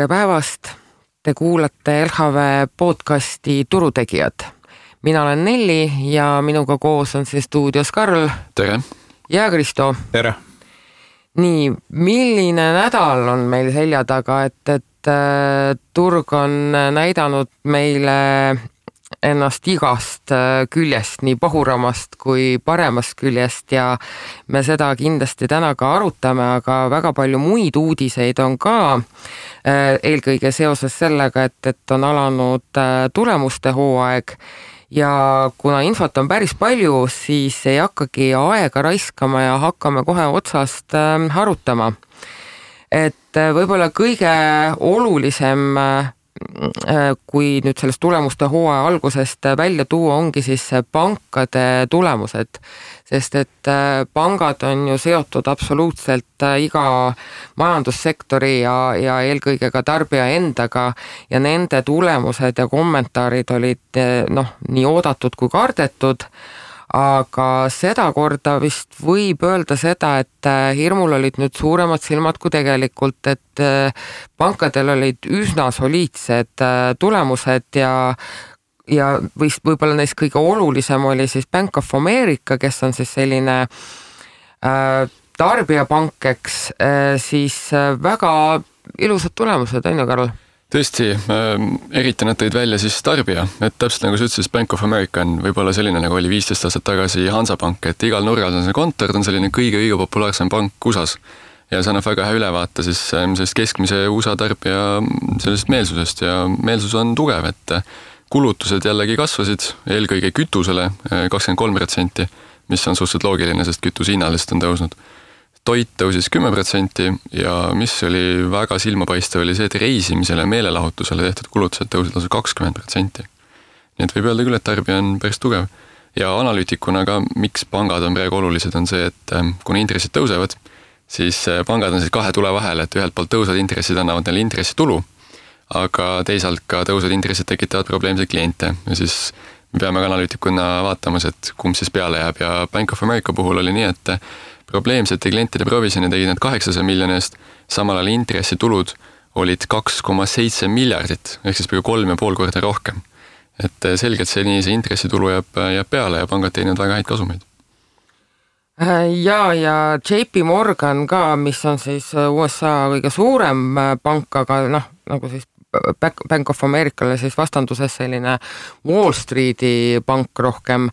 Tere päevast! Te kuulate LHV podcasti Turutegijad. Mina olen Nelli ja minuga koos on siin stuudios Karl. Tere! Ja Kristo. Tere! Nii, milline nädal on meil selja taga, et turg on näidanud meile ennast igast küljest, nii pahuramast kui paremast küljest ja me seda kindlasti täna ka arutame, aga väga palju muid uudiseid on ka eelkõige seoses sellega, et on alanud tulemuste hooaeg ja kuna infot on päris palju, siis ei hakkagi aega raiskama ja hakkame kohe otsast arutama. Et võib-olla kõige olulisem kui nüüd sellest tulemuste hooaja algusest välja tuua ongi siis pankade tulemused, sest et pangad on ju seotud absoluutselt iga majandussektori ja eelkõige ka tarbija endaga ja nende tulemused ja kommentaarid olid nii oodatud kui kardetud, aga seda korda vist võib öelda seda, et hirmul olid nüüd suuremad silmad kui tegelikult, et pankadel olid üsna soliidsed tulemused ja võib-olla neist kõige olulisem oli siis Bank of America, kes on siis selline tarbijapank, siis väga ilusad tulemused, on ju, Karl? Tõesti, eriti nad tõid välja siis tarbija, et täpselt nagu sa ütlesid, Bank of America on võib-olla selline, nagu oli 15 aastat tagasi Hansapank, et igal nurgal on see kontor, ta on selline kõige populaarsem pank USAs ja see annab väga hea ülevaate siis sellest keskmise USA tarbija sellest meelsusest ja meelsus on tugev, et kulutused jällegi kasvasid eelkõige kütusele 23%, mis on suhteliselt loogiline, sest kütuse hinnalist on tõusnud. Toit tõusis 10% ja mis oli väga silmapaistev oli see, et reisimisele ja meelelahutusele tehtud kulutused tõusid lausa 20%. Nii et võib öelda küll, et tarbija on päris tugev. Ja analüütikuna ka, miks pangad on praegu olulised, on see, et kuna intressid tõusevad, siis pangad on siis kahe tule vahel, et ühelt poolt tõusvad intressid annavad neile intressitulu, aga teisalt ka tõusvad intressid tekitavad probleemseid kliente ja siis me peame ka analüütikuna vaatamas, et kumb siis peale jääb ja Bank of America puhul oli nii, et probleemsete klientide provisjoni tegid nad 800 miljoni eest, samal ajal intressitulud olid 2,7 miljardit, ehk siis peaaegu 3,5 korda rohkem. Et selgelt see intressitulu jääb peale ja pangad teenivad väga häid kasumeid. Ja JP Morgan ka, mis on siis USA kõige suurem pank, aga nagu siis Bank of Americale siis vastanduses selline Wall Streeti pank rohkem,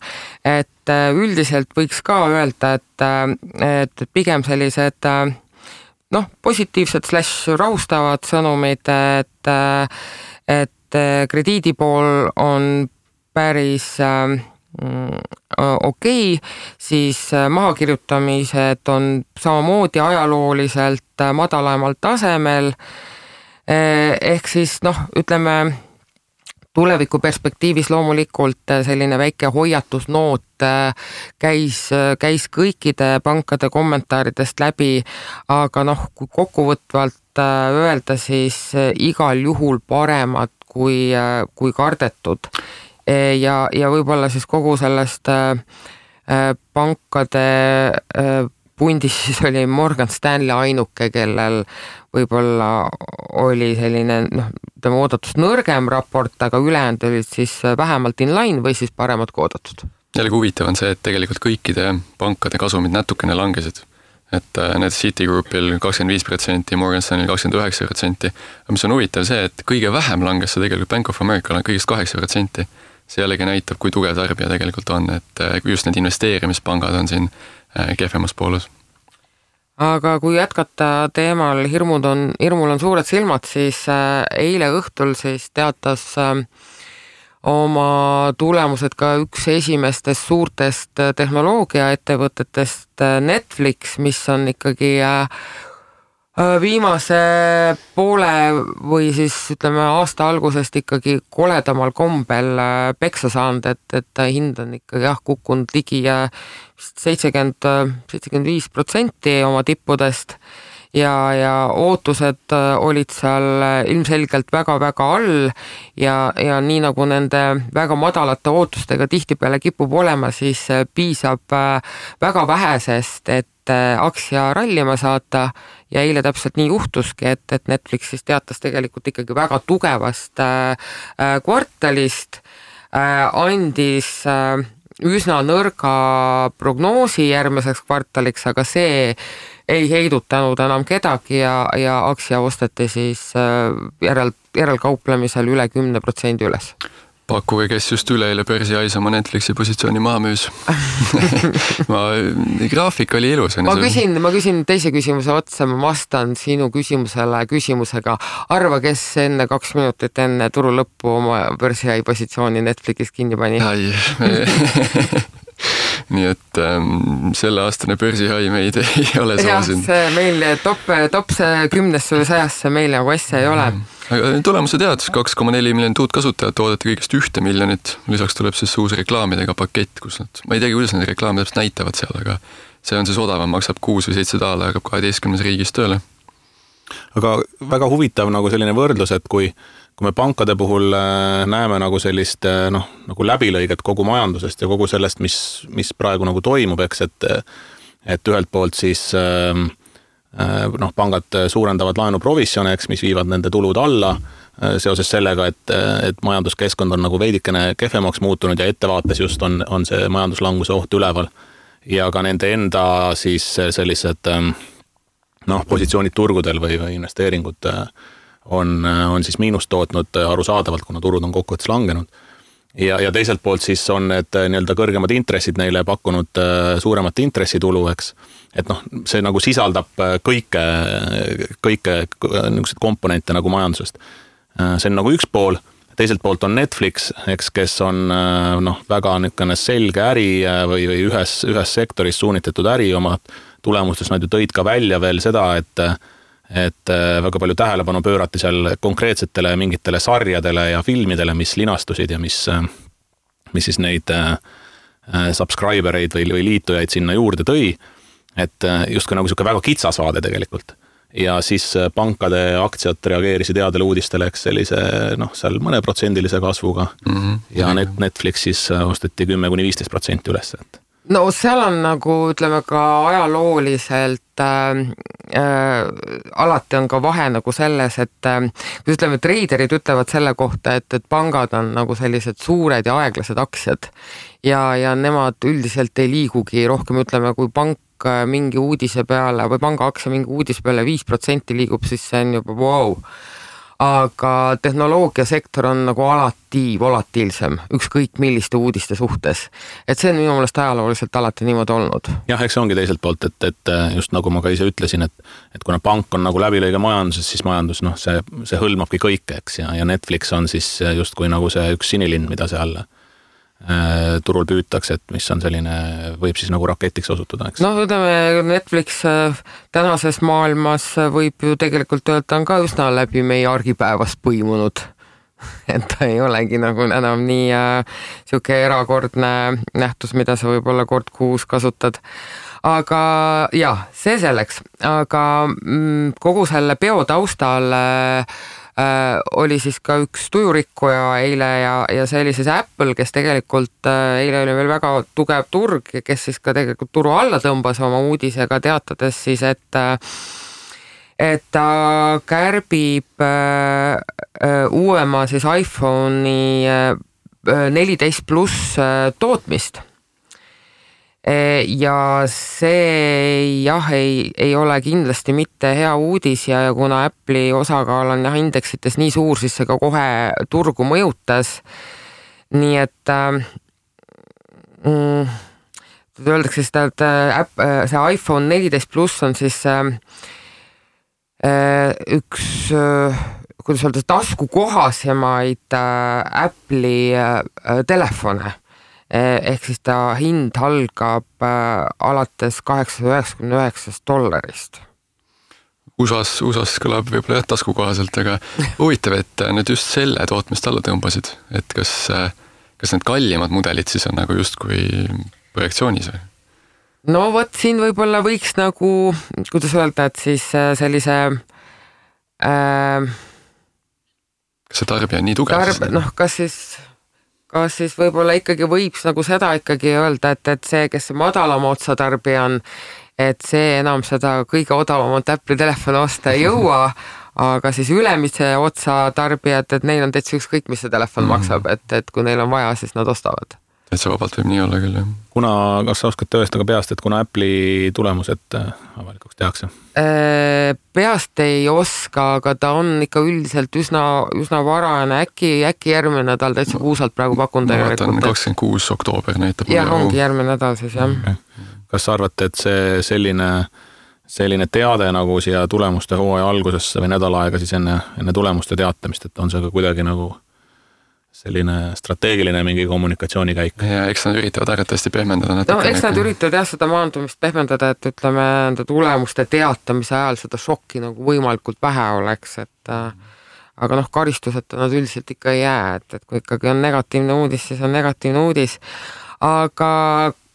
et üldiselt võiks ka öelda, et pigem sellised positiivsed / rahustavad sõnumid, et krediidi pool on päris okei, siis mahakirjutamised on samamoodi ajalooliselt madalamal tasemel, ehk siis ütleme tuleviku perspektiivis loomulikult selline väike hoiatusnoot käis kõikide pankade kommentaaridest läbi, aga kui kokkuvõtvalt öelda, siis igal juhul paremad kui kardetud ja võib-olla siis kogu sellest pankade pundis siis oli Morgan Stanley ainuke, kellel võib-olla oli selline oodatust nõrgem raport, aga ülejäänud olid siis vähemalt in line või siis paremad kui oodatud. Jällegi huvitav on see, et tegelikult kõikide pankade kasumid natukene langesid. Et need Citigroupil 25%, Morgan Stanley 29%, aga mis on huvitav see, et kõige vähem langes see tegelikult Bank of America kõigest 8%. See jällegi näitab, kui tugev tarbija tegelikult on, et just need investeerimispangad on siin kehvemas pooles. Aga kui jätkata teemal hirmul on suured silmad, siis eile õhtul siis teatas oma tulemused ka üks esimestest suurtest tehnoloogiaettevõtetest Netflix, mis on ikkagi viimase poole või siis ütleme aasta algusest ikkagi koledamal kombel peksa saanud, et hind on ikkagi kukkunud ligi 75% oma tippudest ja ootused olid seal ilmselgelt väga-väga all ja nii nagu nende väga madalate ootustega tihtipeale kipub olema, siis piisab väga vähesest, et aktsia rallima saata ja eile täpselt nii juhtuski, et Netflix siis teatas tegelikult ikkagi väga tugevast kvartalist, andis üsna nõrga prognoosi järgmiseks kvartaliks, aga see ei heidutanud enam kedagi ja aktsia osteti siis järelkauplemisel üle 10% üles. Pakkuge, kes just üleeile börsiais oma Netflixi positsiooni maha müüs. Graafik oli ilus. Ma küsin teise küsimuse otsa, ma vastan sinu küsimusega. Arva, kes enne 2 minutit enne turu lõppu oma börsiai positsiooni Netflixis kinni pani? Nii et selle aastane börsihai meid ei ole soosinud. See meil top 10-100 meil nagu asja ei ole. Aga tulemuse tead, 2,4 miljonit uut kasutajat, oodati kõigest 1 miljonit. Lisaks tuleb siis uus reklaamidega pakett, kus ma ei teagi, kuidas need reklaamid täpselt näitavad seal, aga see on siis odavam, maksab 6 või 7 $, hakkab 12 riigis tööle. Aga väga huvitav nagu selline võrdlus, et kui me pankade puhul näeme nagu sellist nagu läbilõiget kogu majandusest ja kogu sellest, mis praegu nagu toimub, eks, et ühelt poolt siis pangad suurendavad laenuprovissione, eks, mis viivad nende tulud alla seoses sellega, et majanduskeskkond on nagu veidikene kehvemaks muutunud ja ettevaates just on see majanduslanguse oht üleval. Ja ka nende enda siis sellised positsioonid turgudel või investeeringud on siis miinust tootnud arusaadavalt, kuna turud on kokkuvõttes langenud. Ja teiselt poolt siis on need nii-öelda kõrgemad intressid neile pakkunud suuremat intressitulu, eks. Et see nagu sisaldab kõike niisugused komponente nagu majandusest. See on nagu üks pool, teiselt poolt on Netflix, eks, kes on väga niisugune selge äri või ühes sektoris suunitetud äri oma tulemustes. Nad ju tõid ka välja veel seda, et väga palju tähelepanu pöörati seal konkreetsetele mingitele sarjadele ja filmidele, mis linastusid ja mis siis neid subscribereid või liitujaid sinna juurde tõi. Et justkui nagu selline väga kitsas vaade tegelikult. Ja siis pankade aktsiad reageerisid headele uudistele, eks sellise seal mõne protsendilise kasvuga ja Netflix siis osteti 10-15% üles. No seal on nagu, ütleme ka ajalooliselt alati on ka vahe nagu selles, et kui ütleme, treiderid ütlevad selle kohta, et pangad on nagu sellised suured ja aeglased aktsiad ja nemad üldiselt ei liigugi rohkem, ütleme, kui pank mingi uudise peale või panga aktsia mingi uudise peale 5% liigub, siis see on juba wow. Aga tehnoloogiasektor on nagu alati volatiilsem, ükskõik milliste uudiste suhtes. Et see on minu meelest ajalooliselt alati niimoodi olnud. Jah, eks ongi teiselt poolt, et just nagu ma ka ise ütlesin, et kuna pank on nagu läbilõige majanduses, siis majandus, see hõlmabki kõike, eks, ja Netflix on siis just kui nagu see üks sinilind, mida seal turul püütakse, et mis on selline, võib siis nagu raketiks osutuda, eks? Ütleme, Netflix tänases maailmas võib ju tegelikult öelda on ka üsna läbi meie argipäevast põimunud. Et ta ei olegi nagu enam nii siuke erakordne nähtus, mida sa võib-olla kord kuus kasutad. Aga see selleks. Aga kogu selle peo taustal oli siis ka üks tujurikkuja eile ja see oli siis Apple, kes tegelikult eile oli veel väga tugev turg, kes siis ka tegelikult turu alla tõmbas oma uudisega teatades siis, et ta kärbib uuema siis iPhone'i 14 pluss tootmist. Ja see ei ole kindlasti mitte hea uudis ja kuna Apple'i osakaal on indeksites nii suur, siis see ka kohe turgu mõjutas. Nii et öeldakse seda, et see iPhone 14 pluss on siis üks, kuidas öelda, taskukohasemaid Apple'i telefone. Ehk siis ta hind algab alates $899. USAs kõlab võib-olla taskukohaselt, aga huvitav, et nüüd just selle tootmist alla tõmbasid, et kas need kallimad mudelid siis on nagu justkui projektsioonis või? No võt siin võib-olla võiks nagu, kuidas öelda, et siis sellise kas see tarbija on nii tugev? Kas siis võib-olla ikkagi võiks nagu seda ikkagi öelda, et see, kes see madalama otsa tarbija on, et see enam seda kõige odavamat Apple'i telefoni osta ei jõua, aga siis ülemise otsa tarbijad, et neil on täitsa ükskõik, mis see telefon maksab, et kui neil on vaja, siis nad ostavad. Et see vabalt võib nii olla küll, jah. Kas sa oskad tõestada peast, et kuna Apple'i tulemused avalikuks tehakse? Peast ei oska, aga ta on ikka üldiselt üsna varane, äkki järgmine nädal täitsa puusalt praegu pakun tegelikult. Ma vaatan 26. oktoober näitab. Jah, ongi järgmine nädal siis, jah. Okay. Kas sa arvate, et see selline teade nagu siia tulemuste hooaja algusesse või nädal aega siis enne tulemuste teatamist, et on see ka kuidagi nagu selline strateegiline mingi kommunikatsioonikäik? Ja eks nad üritavad arvatavasti pehmendada natuke. No eks nad üritavad jah seda maandumist pehmendada, et ütleme enda tulemuste teatamise ajal seda šokki nagu võimalikult vähe oleks, et aga karistuseta nad üldiselt ikka ei jää, et kui ikkagi on negatiivne uudis, siis on negatiivne uudis. Aga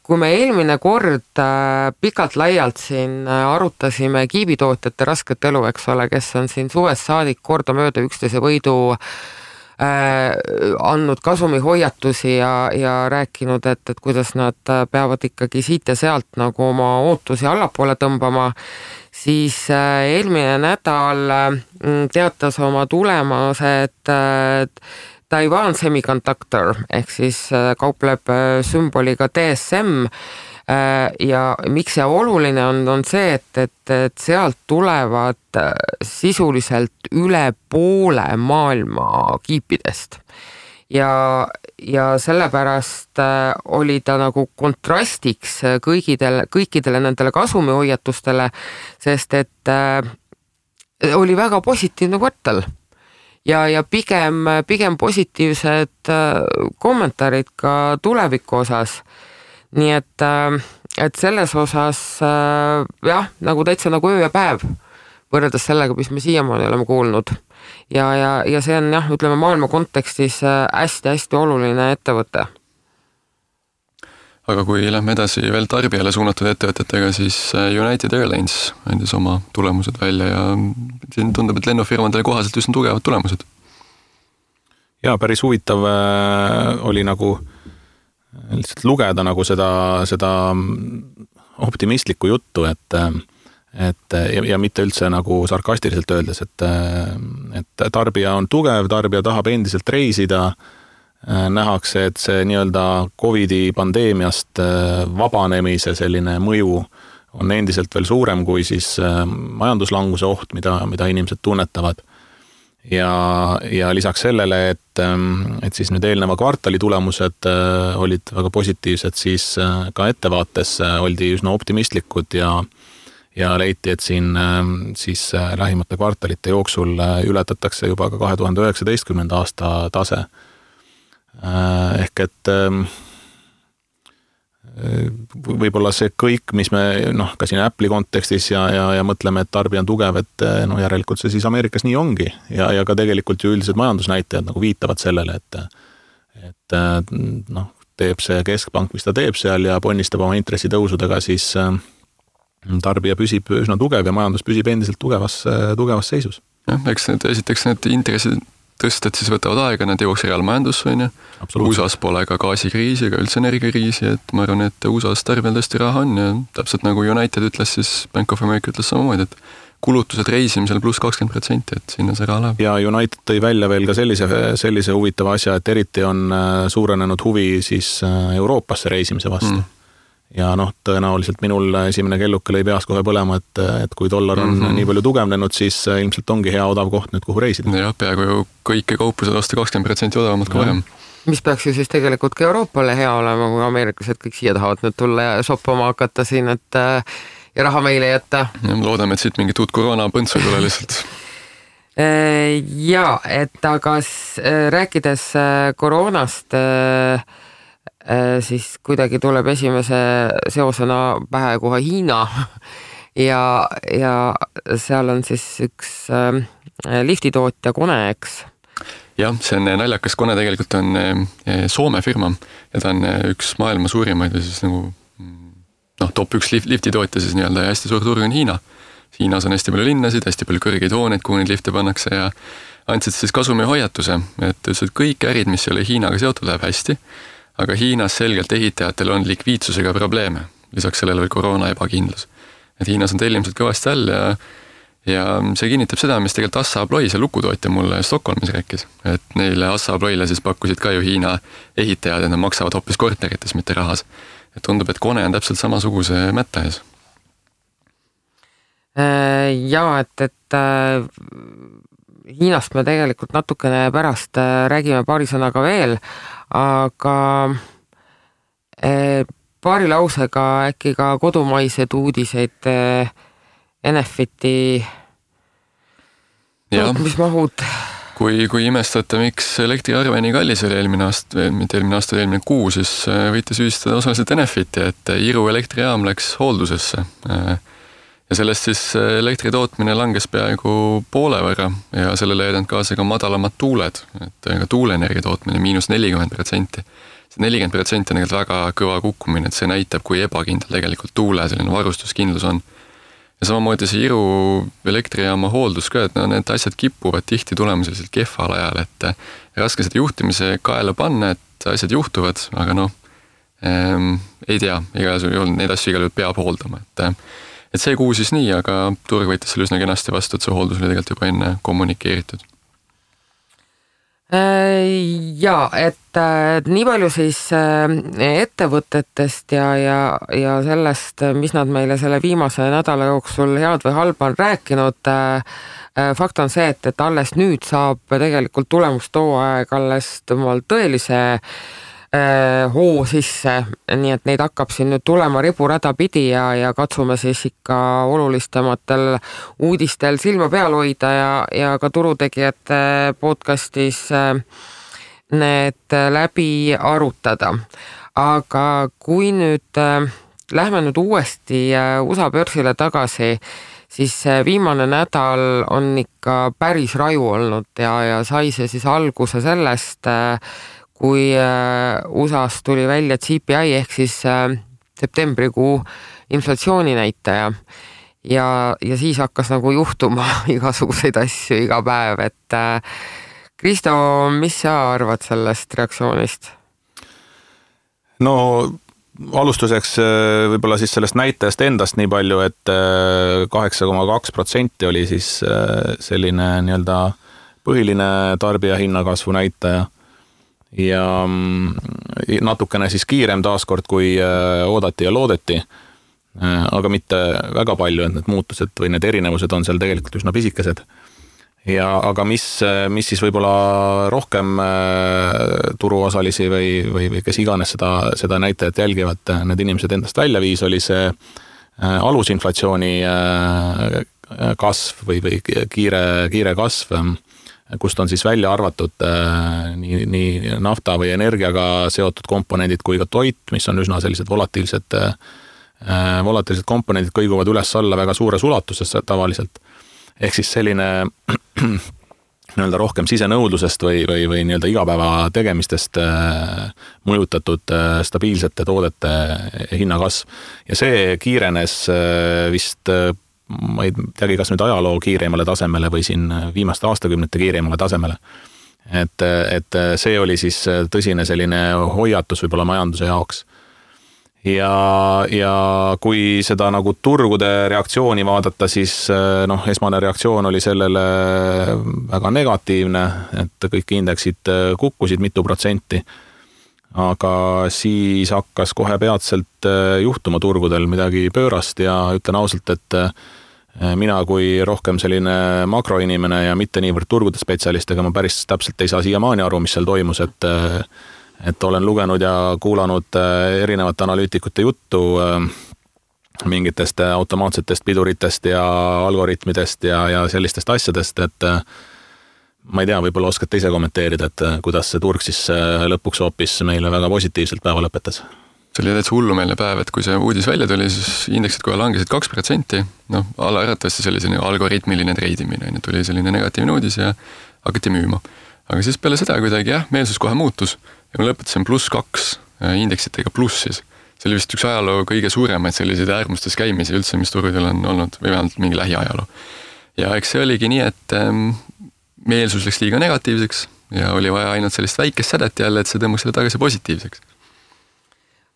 kui me eelmine kord pikalt laialt siin arutasime kiibitootjate rasket elu, eks ole, kes on siin suvest saadik kordamööda üksteise võidu andnud kasumihoiatusi ja rääkinud, et kuidas nad peavad ikkagi siit ja sealt nagu oma ootusi allapoole tõmbama, siis eelmine nädal teatas oma tulemuse, et Taiwan Semiconductor ehk siis kaupleb sümboliga DSM ja miks see oluline on see, et sealt tulevad sisuliselt üle poole maailma kiipidest ja sellepärast oli ta nagu kontrastiks kõikidele nendele kasumihoiatustele, sest et oli väga positiivne kvartal ja pigem positiivsed kommentaarid ka tuleviku osas. Nii et selles osas jah, nagu täitsa nagu öö ja päev võrreldes sellega, mis me siiamaani oleme kuulnud. Ja see on jah, ütleme maailma kontekstis hästi-hästi oluline ettevõte. Aga kui lähme edasi veel tarbijale suunatud ettevõtetega, siis United Airlines andis oma tulemused välja ja siin tundub, et lennufirmadele kohaselt üsna tugevad tulemused. Ja päris huvitav oli nagu lihtsalt lugeda nagu seda optimistlikku juttu, ja mitte üldse nagu sarkastiliselt öeldes, et tarbija on tugev, tarbija tahab endiselt reisida, nähakse, et see nii-öelda Covidi pandeemiast vabanemise selline mõju on endiselt veel suurem kui siis majanduslanguse oht, mida inimesed tunnetavad. Ja lisaks sellele, et siis nüüd eelneva kvartali tulemused olid väga positiivsed, siis ka ettevaates oldi üsna optimistlikud ja leiti, et siin siis lähimate kvartalite jooksul ületatakse juba ka 2019. aasta tase. Ehk et võib-olla see kõik, mis me ka siin Apple'i kontekstis ja mõtleme, et tarbija on tugev, et järelikult see siis Ameerikas nii ongi ja ka tegelikult ju üldised majandusnäitajad nagu viitavad sellele, et teeb see keskpank, mis ta teeb seal ja ponnistab oma intressitõusudega, siis tarbija püsib üsna tugev ja majandus püsib endiselt tugevas seisus. Jah, eks esiteks need intressid tõstad siis võtavad aega, nad jõuaks reaalmajandusse, on ju. USA-s pole ka gaasikriisi ega üldse energiakriisi, et ma arvan, et USA-s tarbijal tõesti raha on ja täpselt nagu United ütles, siis Bank of America ütles samamoodi, et kulutused reisimisel pluss 20%, et sinna see raha läheb. Ja United tõi välja veel ka sellise huvitava asja, et eriti on suurenenud huvi siis Euroopasse reisimise vastu. Ja tõenäoliselt minul esimene kelluke lõi peas kohe põlema, et kui dollar on nii palju tugevnenud, siis ilmselt ongi hea odav koht nüüd, kuhu reisida. Ja peaaegu ju kõike kaupu saad osta 20% odavamalt kui varem. Mis peaks ju siis tegelikult ka Euroopale hea olema, kui ameeriklased kõik siia tahavad nüüd tulla ja shoppama hakata siin, et ja raha meile jätta. Ja loodame, et siit mingit uut koroona põntsu ei tule lihtsalt. Ja, et aga rääkides koroonast, siis kuidagi tuleb esimese seosena pähe kohe Hiina ja seal on siis üks liftitootja Kone, eks? Jah, see on naljakas. Kone tegelikult on Soome firma ja ta on üks maailma suurimaid ja siis nagu top 1 liftitootja siis nii-öelda ja hästi suur turg on Hiina. Hiinas on hästi palju linnasid, hästi palju kõrgeid hooneid, kuhu neid lifte pannakse ja andsid siis kasumi hoiatuse, et kõik ärid, mis ei ole Hiinaga seotud, läheb hästi. Aga Hiinas selgelt ehitajatel on likviidsusega probleeme, lisaks sellele veel koroona ebakindlus. et Hiinas on tellimused kõvasti all ja see kinnitab seda, mis tegelikult Assa Abloy, see lukutootja mulle Stockholmis rääkis, et neile Assa Abloyle siis pakkusid ka ju Hiina ehitajad, et nad maksavad hoopis korterites, mitte rahas. Et tundub, et Kone on täpselt samasuguse mätta ees. Jaa, et Hiinast me tegelikult natukene pärast räägime paari sõnaga veel, aga paari lausega äkki ka kodumaised uudiseid Enefiti tootmismahud. Kui imestate, miks elektriarve nii kallis oli eelmine kuu, siis võite süüstada osaliselt Enefiti, et Iru elektrijaam läks hooldusesse. Ja sellest siis elektri tootmine langes peaaegu poole võrra ja sellele jäidanud kaasa ka madalamad tuuled, et ka tuuleenergia tootmine -40%. See 40% on tegelikult väga kõva kukkumine, et see näitab, kui ebakindel tegelikult tuule selline varustuskindlus on. Ja samamoodi see Iru elektrijaama hooldus ka, et need asjad kipuvad tihti tulema selliselt kehval ajal, et raske seda juhtimise kaela panna, et asjad juhtuvad, aga ei tea, neid asju igal juhul peab hooldama, et see kuu siis nii, aga turg võitis selle üsna kenasti vastu, et see hooldus oli tegelikult juba enne kommunikeeritud. Jaa, et nii palju siis ettevõtetest ja sellest, mis nad meile selle viimase nädala jooksul head või halba on rääkinud. Fakt on see, et alles nüüd saab tegelikult tulemustooaeg alles tõelise hoo sisse, nii et neid hakkab siin nüüd tulema riburada pidi ja katsume siis ikka olulistematel uudistel silma peal hoida ja ka turutegijate podcastis need läbi arutada. Aga kui nüüd lähme nüüd uuesti USA börsile tagasi, siis viimane nädal on ikka päris raju olnud ja sai see siis alguse sellest, kui USAs tuli välja CPI ehk siis septembrikuu inflatsiooninäitaja ja siis hakkas nagu juhtuma igasuguseid asju iga päev, et Kristo, mis sa arvad sellest reaktsioonist? No alustuseks võib-olla siis sellest näitajast endast nii palju, et 8,2% oli siis selline nii-öelda põhiline tarbija hinnakasvu näitaja ja natukene siis kiirem taaskord, kui oodati ja loodeti, aga mitte väga palju, et need muutused või need erinevused on seal tegelikult üsna pisikesed. Aga mis siis võib-olla rohkem turuosalisi või kes iganes seda näitajat jälgivad, need inimesed endast välja viis, oli see alusinflatsiooni kasv või kiire kasv, kust on siis välja arvatud nii nafta või energiaga seotud komponendid kui ka toit, mis on üsna sellised volatiilsed komponendid, kõiguvad üles-alla väga suures ulatuses tavaliselt. Ehk siis selline nii-öelda rohkem sisenõudlusest või nii-öelda igapäeva tegemistest mõjutatud stabiilsete toodete hinnakasv. Ja see kiirenes vist ma ei teagi, kas nüüd ajaloo kiireimale tasemele või siin viimaste aastakümnete kiireimale tasemele. Et see oli siis tõsine selline hoiatus võib-olla majanduse jaoks. Ja kui seda nagu turgude reaktsiooni vaadata, siis esmane reaktsioon oli sellele väga negatiivne, et kõik indeksid kukkusid mitu protsenti. Aga siis hakkas kohe peatselt juhtuma turgudel midagi pöörast ja ütlen ausalt, et mina kui rohkem selline makroinimene ja mitte niivõrd turgude spetsialist, ega ma päris täpselt ei saa siiamaani aru, mis seal toimus, et olen lugenud ja kuulanud erinevate analüütikute juttu mingitest automaatsetest piduritest ja algoritmidest ja sellistest asjadest, et ma ei tea, võib-olla oskate ise kommenteerida, et kuidas see turg siis lõpuks hoopis meile väga positiivselt päeva lõpetas. See oli täitsa hullumeelne päev, et kui see uudis välja tuli, siis indeksid kohe langesid 2%, alaäratavasti see oli selline algoritmiline treidimine, tuli selline negatiivne uudis ja hakati müüma. Aga siis peale seda kuidagi meelsus kohe muutus ja ma lõpetasin +2 indeksitega plussis. See oli vist üks ajaloo kõige suuremaid selliseid äärmustes käimisi üldse, mis turgudel on olnud või vähemalt mingi lähiajaloo. Ja eks see oligi nii, et meelsus läks liiga negatiivseks ja oli vaja ainult sellist väikest sädet jälle, et see tõmbaks selle tagasi positiivseks.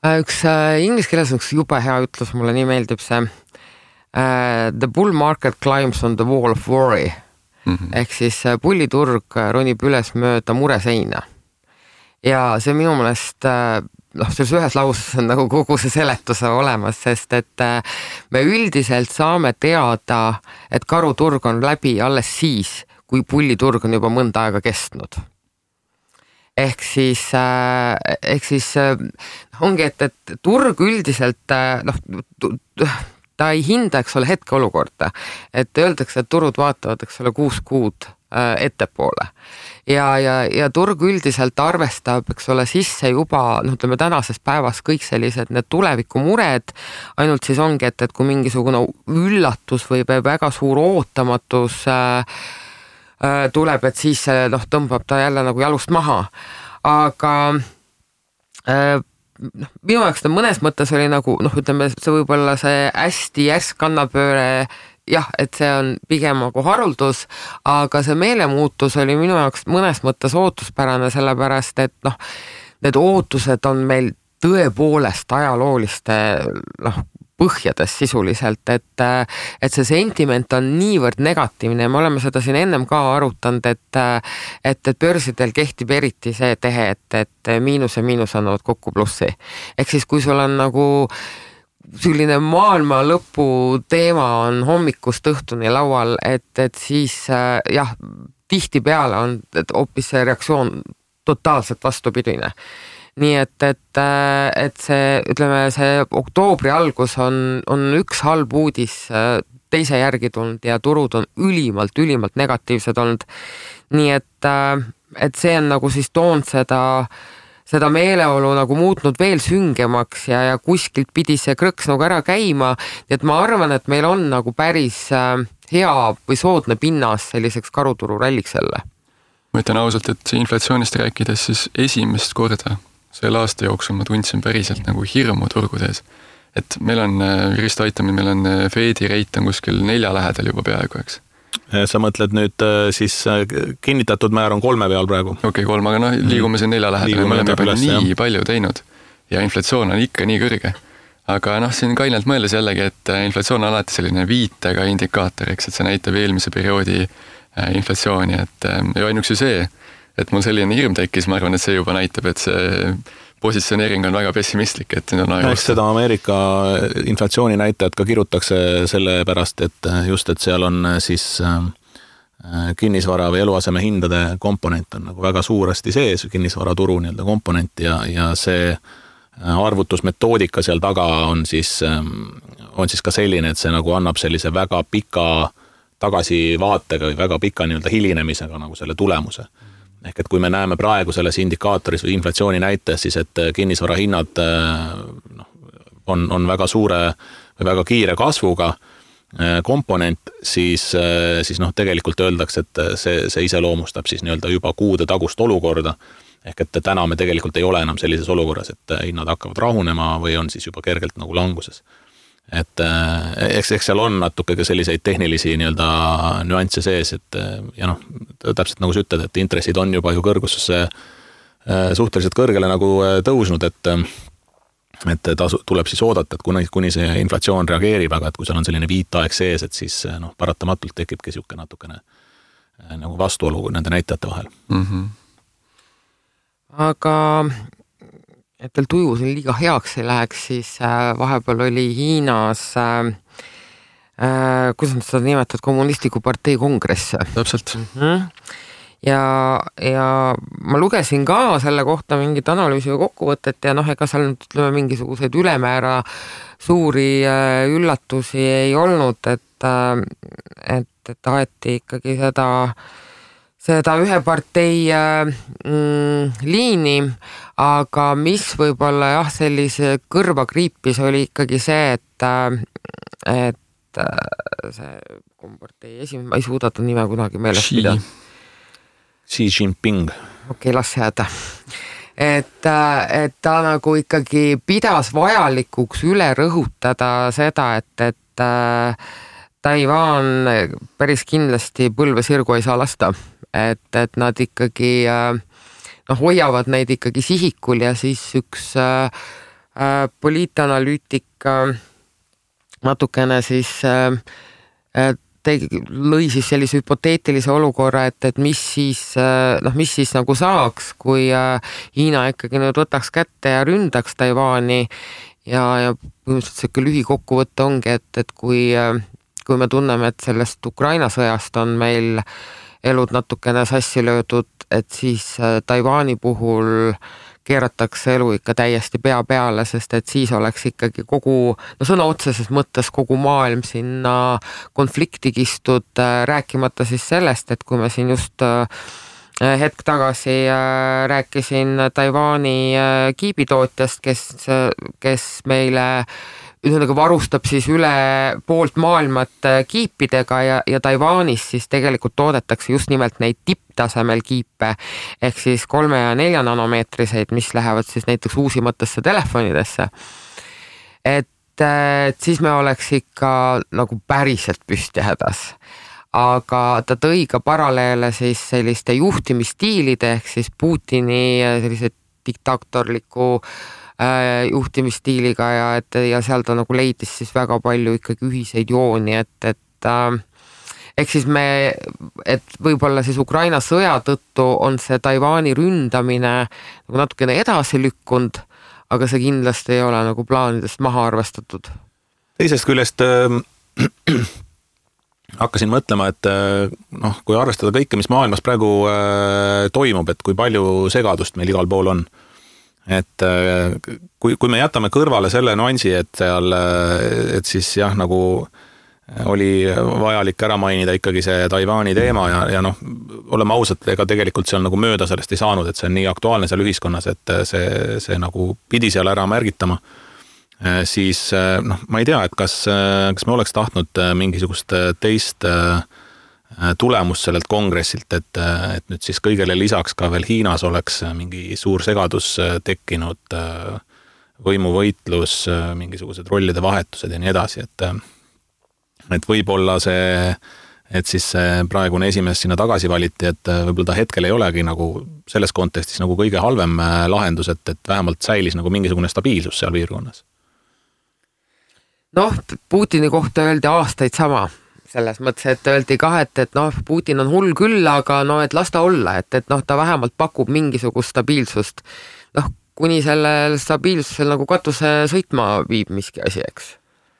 Üks inglise keeles on üks jube hea ütlus, mulle nii meeldib see The bull market climbs on the wall of worry. Ehk siis pulliturg ronib üles mööda mureseina. Ja see minu meelest, selles ühes lauses on nagu kogu see seletuse olemas, sest et me üldiselt saame teada, et karuturg on läbi alles siis, kui pulliturg on juba mõnda aega kestnud. Ehk siis ongi, et turg üldiselt, ta ei hinda, eks ole, hetkeolukorda. Et öeldakse, et turud vaatavad, eks ole, 6 kuud ettepoole. Ja turg üldiselt arvestab, eks ole, sisse juba, ütleme tänases päevas kõik sellised need tulevikumured, ainult siis ongi, et kui mingisugune üllatus või väga suur ootamatus tuleb, et siis tõmbab ta jälle nagu jalust maha. Aga minu jaoks ta mõnes mõttes oli nagu, ütleme, see võib-olla see hästi järsk kannapööre, jah, et see on pigem nagu haruldus, aga see meelemuutus oli minu jaoks mõnes mõttes ootuspärane, sellepärast, et need ootused on meil tõepoolest ajalooliste põhjades sisuliselt, et see sentiment on niivõrd negatiivne ja me oleme seda siin ennem ka arutanud, et börsidel kehtib eriti see tehe, et miinus ja miinus annavad kokku plussi. Ehk siis, kui sul on nagu selline maailma lõpu teema on hommikust õhtuni laual, et siis jah, tihti peale on hoopis see reaktsioon totaalselt vastupidine. Nii et see, ütleme, see oktoobri algus on üks halb uudis teise järgi tulnud ja turud on ülimalt negatiivsed olnud. Nii et see on nagu siis toonud seda meeleolu nagu muutnud veel süngemaks ja kuskilt pidi see krõks nagu ära käima. Et ma arvan, et meil on nagu päris hea või soodne pinnas selliseks karuturu ralliks jälle. Ma ütlen ausalt, et inflatsioonist rääkides siis esimest korda selle aasta jooksul ma tundsin päriselt nagu hirmu turgudes. Et meil on, Risto aitamine, meil on Fedi reit on kuskil 4 lähedal juba peaaegu, eks. Sa mõtled nüüd siis kinnitatud määr on 3 peal praegu? Okei, 3, aga liigume siin 4 lähedal. Me oleme juba nii palju teinud ja inflatsioon on ikka nii kõrge. Aga siin kainelt mõeldes jällegi, et inflatsioon on alati selline viitega indikaator, eks, et see näitab eelmise perioodi inflatsiooni, et ja ainuks ju see, et mul selline hirm tekkis, ma arvan, et see juba näitab, et see positsioneering on väga pessimistlik, et nüüd on aega. Eks seda Ameerika inflatsiooni näitajad ka kirutakse selle pärast, et just, et seal on siis kinnisvara või eluaseme hindade komponent on nagu väga suuresti sees, kinnisvaraturu nii-öelda komponent ja see arvutusmetoodika seal taga on siis ka selline, et see nagu annab sellise väga pika tagasivaatega või väga pika nii-öelda hilinemisega nagu selle tulemuse. Ehk et kui me näeme praegu selles indikaatoris või inflatsiooni näites, siis et kinnisvara hinnad on väga suure või väga kiire kasvuga komponent, siis tegelikult öeldakse, et see iseloomustab siis nii-öelda juba kuude tagust olukorda. Ehk et täna me tegelikult ei ole enam sellises olukorras, et hinnad hakkavad rahunema või on siis juba kergelt nagu languses. Et eks seal on natuke ka selliseid tehnilisi nii-öelda nüansse sees, et ja täpselt nagu sa ütled, et intressid on juba ju kõrgusesse suhteliselt kõrgele nagu tõusnud, et tuleb siis oodata, et kuni see inflatsioon reageerib, aga et kui seal on selline viitaeg sees, et siis paratamatult tekibki siuke natukene nagu vastuolu nende näitajate vahel. Aga et teil tuju siin liiga heaks ei läheks, siis vahepeal oli Hiinas, kuidas nad seda nimetavad, kommunistliku partei kongress. Täpselt. Ja ma lugesin ka selle kohta mingit analüüsi või kokkuvõtet ja ega seal ütleme mingisuguseid ülemäära suuri üllatusi ei olnud, et taheti ikkagi seda ühe partei liini, aga mis võib-olla jah, sellise kõrva kriipis oli ikkagi see, et see kompartei esimene, ma ei suuda ta nime kunagi meeles pidada. Xi Jinping. Okei, las jääda. Et ta nagu ikkagi pidas vajalikuks üle rõhutada seda, et Taiwan päris kindlasti põlve sirgu ei saa lasta. Et nad ikkagi hoiavad neid ikkagi sihikul ja siis üks poliitanalüütik natukene siis lõi siis sellise hüpoteetilise olukorra, et mis siis nagu saaks, kui Hiina ikkagi nüüd võtaks kätte ja ründaks Taiwani ja põhimõtteliselt siuke lühikokkuvõte ongi, et kui me tunneme, et sellest Ukraina sõjast on meil elud natukene sassi löödud, et siis Taiwani puhul keeratakse elu ikka täiesti pea peale, sest et siis oleks ikkagi kogu, sõna otseses mõttes kogu maailm sinna konflikti kistud, rääkimata siis sellest, et kui me siin just hetk tagasi rääkisin Taiwani kiibitootjast, kes meile varustab siis üle poolt maailmat kiipidega ja Taiwanis siis tegelikult toodetakse just nimelt neid tipptasemel kiipe ehk siis 3 ja 4 nanomeetriseid, mis lähevad siis näiteks uusimatesse telefonidesse. Et siis me oleks ikka nagu päriselt püsti hädas. Aga ta tõi ka paralleele siis selliste juhtimisstiilide ehk siis Putini sellise diktaatorliku juhtimisstiiliga ja seal ta nagu leidis siis väga palju ikkagi ühiseid jooni, et ehk siis et võib-olla siis Ukraina sõja tõttu on see Taiwani ründamine nagu natukene edasi lükkunud, aga see kindlasti ei ole nagu plaanidest maha arvestatud. Teisest küljest hakkasin mõtlema, et kui arvestada kõike, mis maailmas praegu toimub, et kui palju segadust meil igal pool on. Et kui me jätame kõrvale selle nuansi, et siis jah, nagu oli vajalik ära mainida ikkagi see Taiwani teema ja oleme ausad, ega tegelikult seal nagu mööda sellest ei saanud, et see on nii aktuaalne seal ühiskonnas, et see nagu pidi seal ära märgitama. Siis ma ei tea, et kas me oleks tahtnud mingisugust teist tulemus sellelt kongressilt, et nüüd siis kõigele lisaks ka veel Hiinas oleks mingi suur segadus tekkinud, võimuvõitlus, mingisugused rollide vahetused ja nii edasi, et võib-olla see, et siis praegune esimees sinna tagasi valiti, et võib-olla ta hetkel ei olegi nagu selles kontekstis nagu kõige halvem lahendus, et vähemalt säilis nagu mingisugune stabiilsus seal piirkonnas. Putini kohta öeldi aastaid sama. Selles mõttes, et öeldi ka, et Putin on hull küll, aga et las ta olla, et ta vähemalt pakub mingisugust stabiilsust. Kuni sellel stabiilsusel nagu katuse sõitma viib miski asi, eks.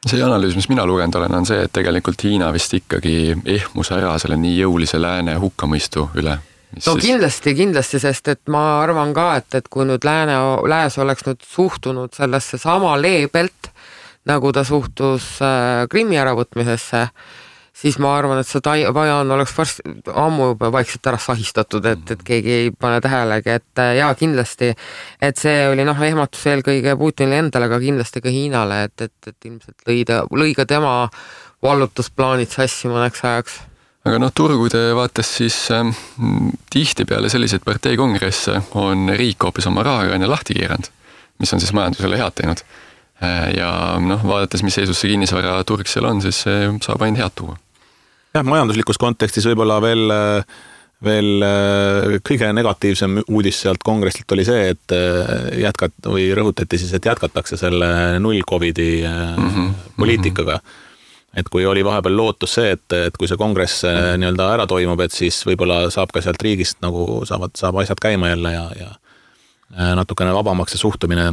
See analüüs, mis mina lugenud olen, on see, et tegelikult Hiina vist ikkagi ehmus ära selle nii jõulise lääne hukkamõistu üle. Kindlasti, sest et ma arvan ka, et kui nüüd lääs oleks nüüd suhtunud sellesse sama leebelt, nagu ta suhtus Krimmi äravõtmisesse, siis ma arvan, et see Taiwan oleks ammu juba vaikselt ära sahistatud, et keegi ei pane tähelegi, et jaa, kindlasti, et see oli ehmatus eelkõige Putinile endale, aga kindlasti ka Hiinale, et ilmselt lõi ka tema vallutusplaanid sassi mõneks ajaks. Aga turgude vaates siis tihti peale selliseid parteikongresse on riik hoopis oma rahakraane lahti keeranud, mis on siis majandusele head teinud. Ja vaadates, mis seisus see kinnisvara turg seal on, siis see saab ainult head tuua. Jah, majanduslikus kontekstis võib-olla veel kõige negatiivsem uudis sealt kongressilt oli see, et rõhutati siis, et jätkatakse selle null Covidi poliitikaga. Et kui oli vahepeal lootus see, et kui see kongress nii-öelda ära toimub, et siis võib-olla saab ka sealt riigist nagu saab asjad käima jälle ja natukene vabamaks see suhtumine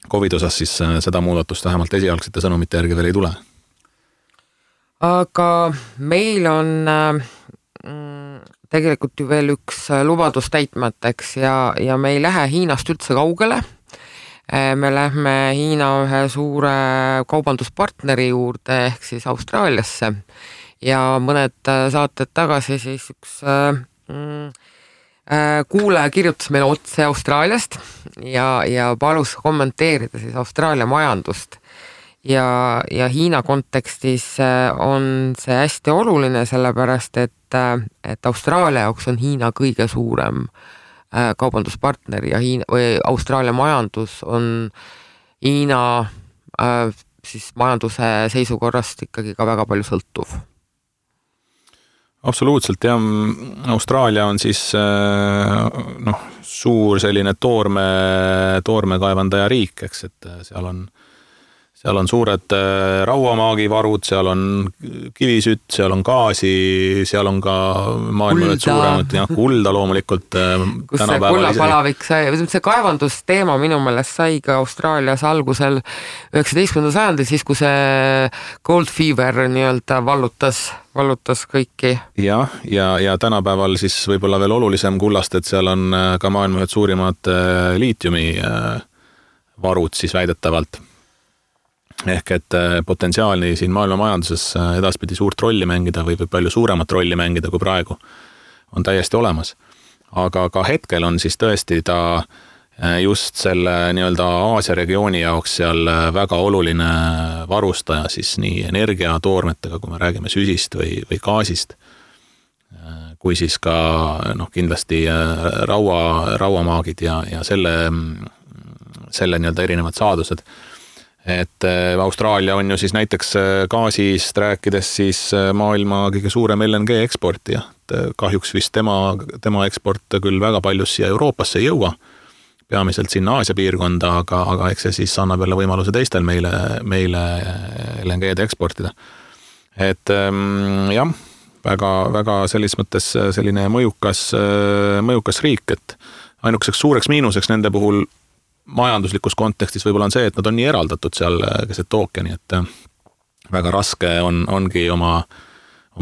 COVID osas, siis seda muudatust vähemalt esialgsete sõnumite järgi veel ei tule. Aga meil on tegelikult ju veel üks lubadus täitmateks ja me ei lähe Hiinast üldse kaugele. Me lähme Hiina ühe suure kaubanduspartneri juurde ehk siis Austraaliasse ja mõned saated tagasi siis üks kuulaja kirjutas meile otse Austraaliast ja palus kommenteerida siis Austraalia majandust ja Hiina kontekstis on see hästi oluline, sellepärast et Austraalia jaoks on Hiina kõige suurem kaubanduspartner ja Austraalia majandus on Hiina siis majanduse seisukorrast ikkagi ka väga palju sõltuv. Absoluutselt, ja Austraalia on siis suur selline toorme kaevandaja riik, eks, et seal seal on suured rauamaagivarud, seal on kivisütt, seal on gaasi, seal on ka maailma ühed suuremad, kulda loomulikult. Kus see kullapalavik sai, see kaevandusteema minu meelest sai ka Austraalias algusel 19. sajandil, siis kui see Gold Fever nii-öelda vallutas kõiki. Ja tänapäeval siis võib-olla veel olulisem kullast, et seal on ka maailma ühed suurimad liitiumi varud siis väidetavalt. Ehk et potentsiaalni siin maailma majanduses edaspidi suurt rolli mängida või palju suuremat rolli mängida kui praegu on täiesti olemas. Aga ka hetkel on siis tõesti ta just selle nii-öelda Aasia regiooni jaoks seal väga oluline varustaja siis nii energiatoormetega, kui me räägime süsist või gaasist, kui siis ka kindlasti rauamaagid ja selle nii-öelda erinevad saadused. Et Austraalia on ju siis näiteks gaasist rääkides siis maailma kõige suurem LNG eksportija. Kahjuks vist tema eksport küll väga palju siia Euroopasse ei jõua, peamiselt sinna Aasia piirkonda, aga eks see siis annab jälle võimaluse teistel meile LNG-d eksportida. Et jah, väga selles mõttes selline mõjukas riik, et ainukeseks suureks miinuseks nende puhul majanduslikus kontekstis võib-olla on see, et nad on nii eraldatud seal keset ookeani, et väga raske ongi oma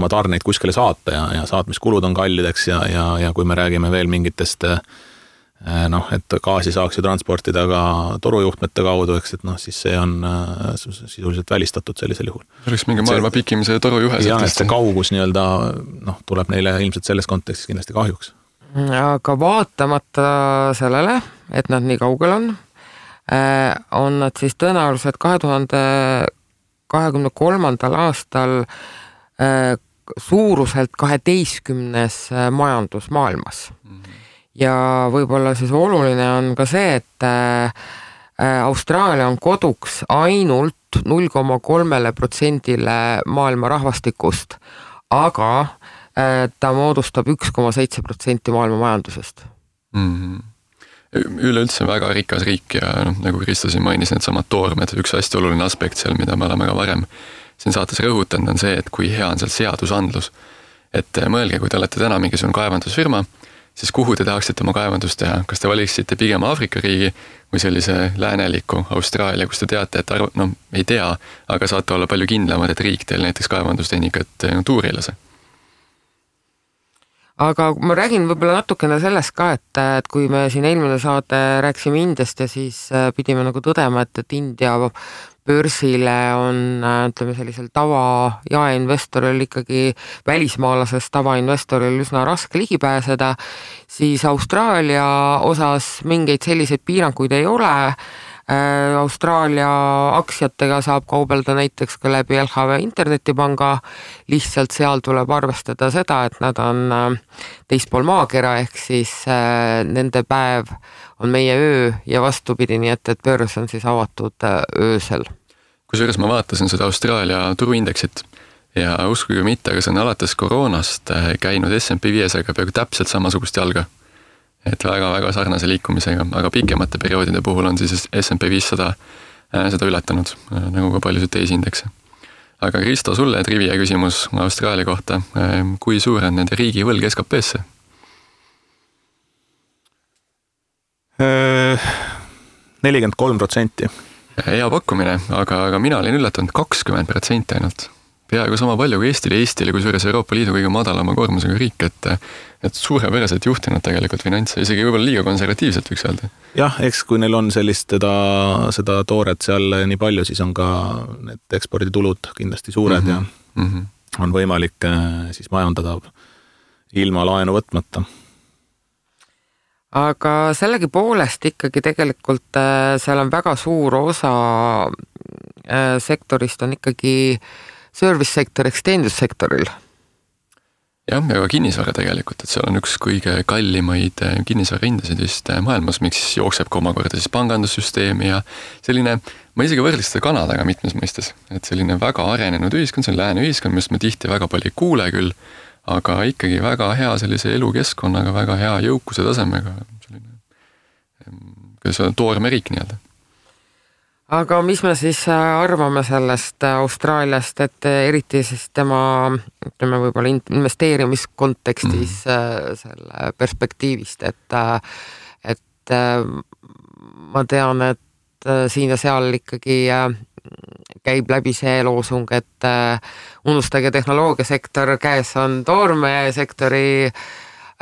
tarneid kuskile saata ja saatmiskulud on kallideks ja kui me räägime veel mingitest et gaasi saaks ju transportida ka torujuhtmete kaudu, eks, et siis see on sisuliselt välistatud sellisel juhul. Oleks mingi maailma pikimise torujuhe. Ja, et see kaugus nii-öelda tuleb neile ilmselt selles kontekstis kindlasti kahjuks. Aga vaatamata sellele, et nad nii kaugel on nad siis tõenäoliselt 2023. aastal suuruselt 12. majandus maailmas. Ja võib-olla siis oluline on ka see, et Austraalia on koduks ainult 0,3% maailma rahvastikust, aga ta moodustab 1,7% maailma majandusest. Üleüldse väga rikas riik ja nagu Kristo siin mainis, need samad toormed, üks hästi oluline aspekt seal, mida me oleme ka varem siin saates rõhutanud, on see, et kui hea on seal seadusandlus. Et mõelge, kui te olete täna mingisugune kaevandusfirma, siis kuhu te tahaksite oma kaevandust teha? Kas te valiksite pigem Aafrika riigi või sellise lääneliku Austraalia, kus te teate, et ei tea, aga saate olla palju kindlamad, et riik teil näiteks kaevandustehnikat tuuri ei lase? Aga ma räägin võib-olla natukene sellest ka, et kui me siin eelmine saade rääksime Indiast ja siis pidime nagu tõdema, et India börsile on, ütleme sellisel tava jaeinvestoril ikkagi välismaalasest tavainvestoril üsna raske ligi pääseda, siis Austraalia osas mingeid selliseid piiranguid ei ole. Austraalia aktsiatega saab kaubelda näiteks ka läbi LHV internetipanga, lihtsalt seal tuleb arvestada seda, et nad on teispool maakera, ehk siis nende päev on meie öö ja vastupidi, nii et börs on siis avatud öösel. Kusjuures ma vaatasin seda Austraalia turuindeksit ja uskuge mitte, aga see on alates koroonast käinud S&P 500 peaaegu täpselt samasugust jalga. Et väga sarnase liikumisega, aga pikemate perioodide puhul on siis S&P 500 seda ületanud, nagu ka paljusid teisi indekse. Aga Kristo, sulle trivia küsimus Austraalia kohta. Kui suur on nende riigi võlg SKP-sse? 43%. Hea pakkumine, aga mina olin üllatanud 20% ainult. Peaaegu sama palju kui Eestile, kui suures Euroopa Liidu kõige madalama koormusega riik, et suurepäraselt juhtinud tegelikult finantse, isegi võib-olla liiga konservatiivselt võiks öelda. Jah, eks kui neil on sellist seda tooret seal nii palju, siis on ka need eksporditulud kindlasti suured ja on võimalik siis majandada ilma laenu võtmata. Aga sellegi poolest ikkagi tegelikult seal on väga suur osa sektorist on ikkagi service-sektor, teenindussektoril. Jah, ja ka kinnisvara tegelikult, et seal on üks kõige kallimaid kinnisvara hindasid vist maailmas, miks jookseb ka omakorda siis pangandussüsteemi ja selline, ma isegi võrdleks seda Kanadaga mitmes mõistes, et selline väga arenenud ühiskond, see on lääne ühiskond, millest me tihti väga palju ei kuule küll, aga ikkagi väga hea sellise elukeskkonnaga, väga hea jõukuse tasemega, selline toorme riik nii-öelda. aga mis me siis arvame sellest Austraaliast, et eriti siis tema, ütleme võib-olla investeerimiskontekstis selle perspektiivist, et ma tean, et siin ja seal ikkagi käib läbi see loosung, et unustage tehnoloogiasektor, käes on toormesektori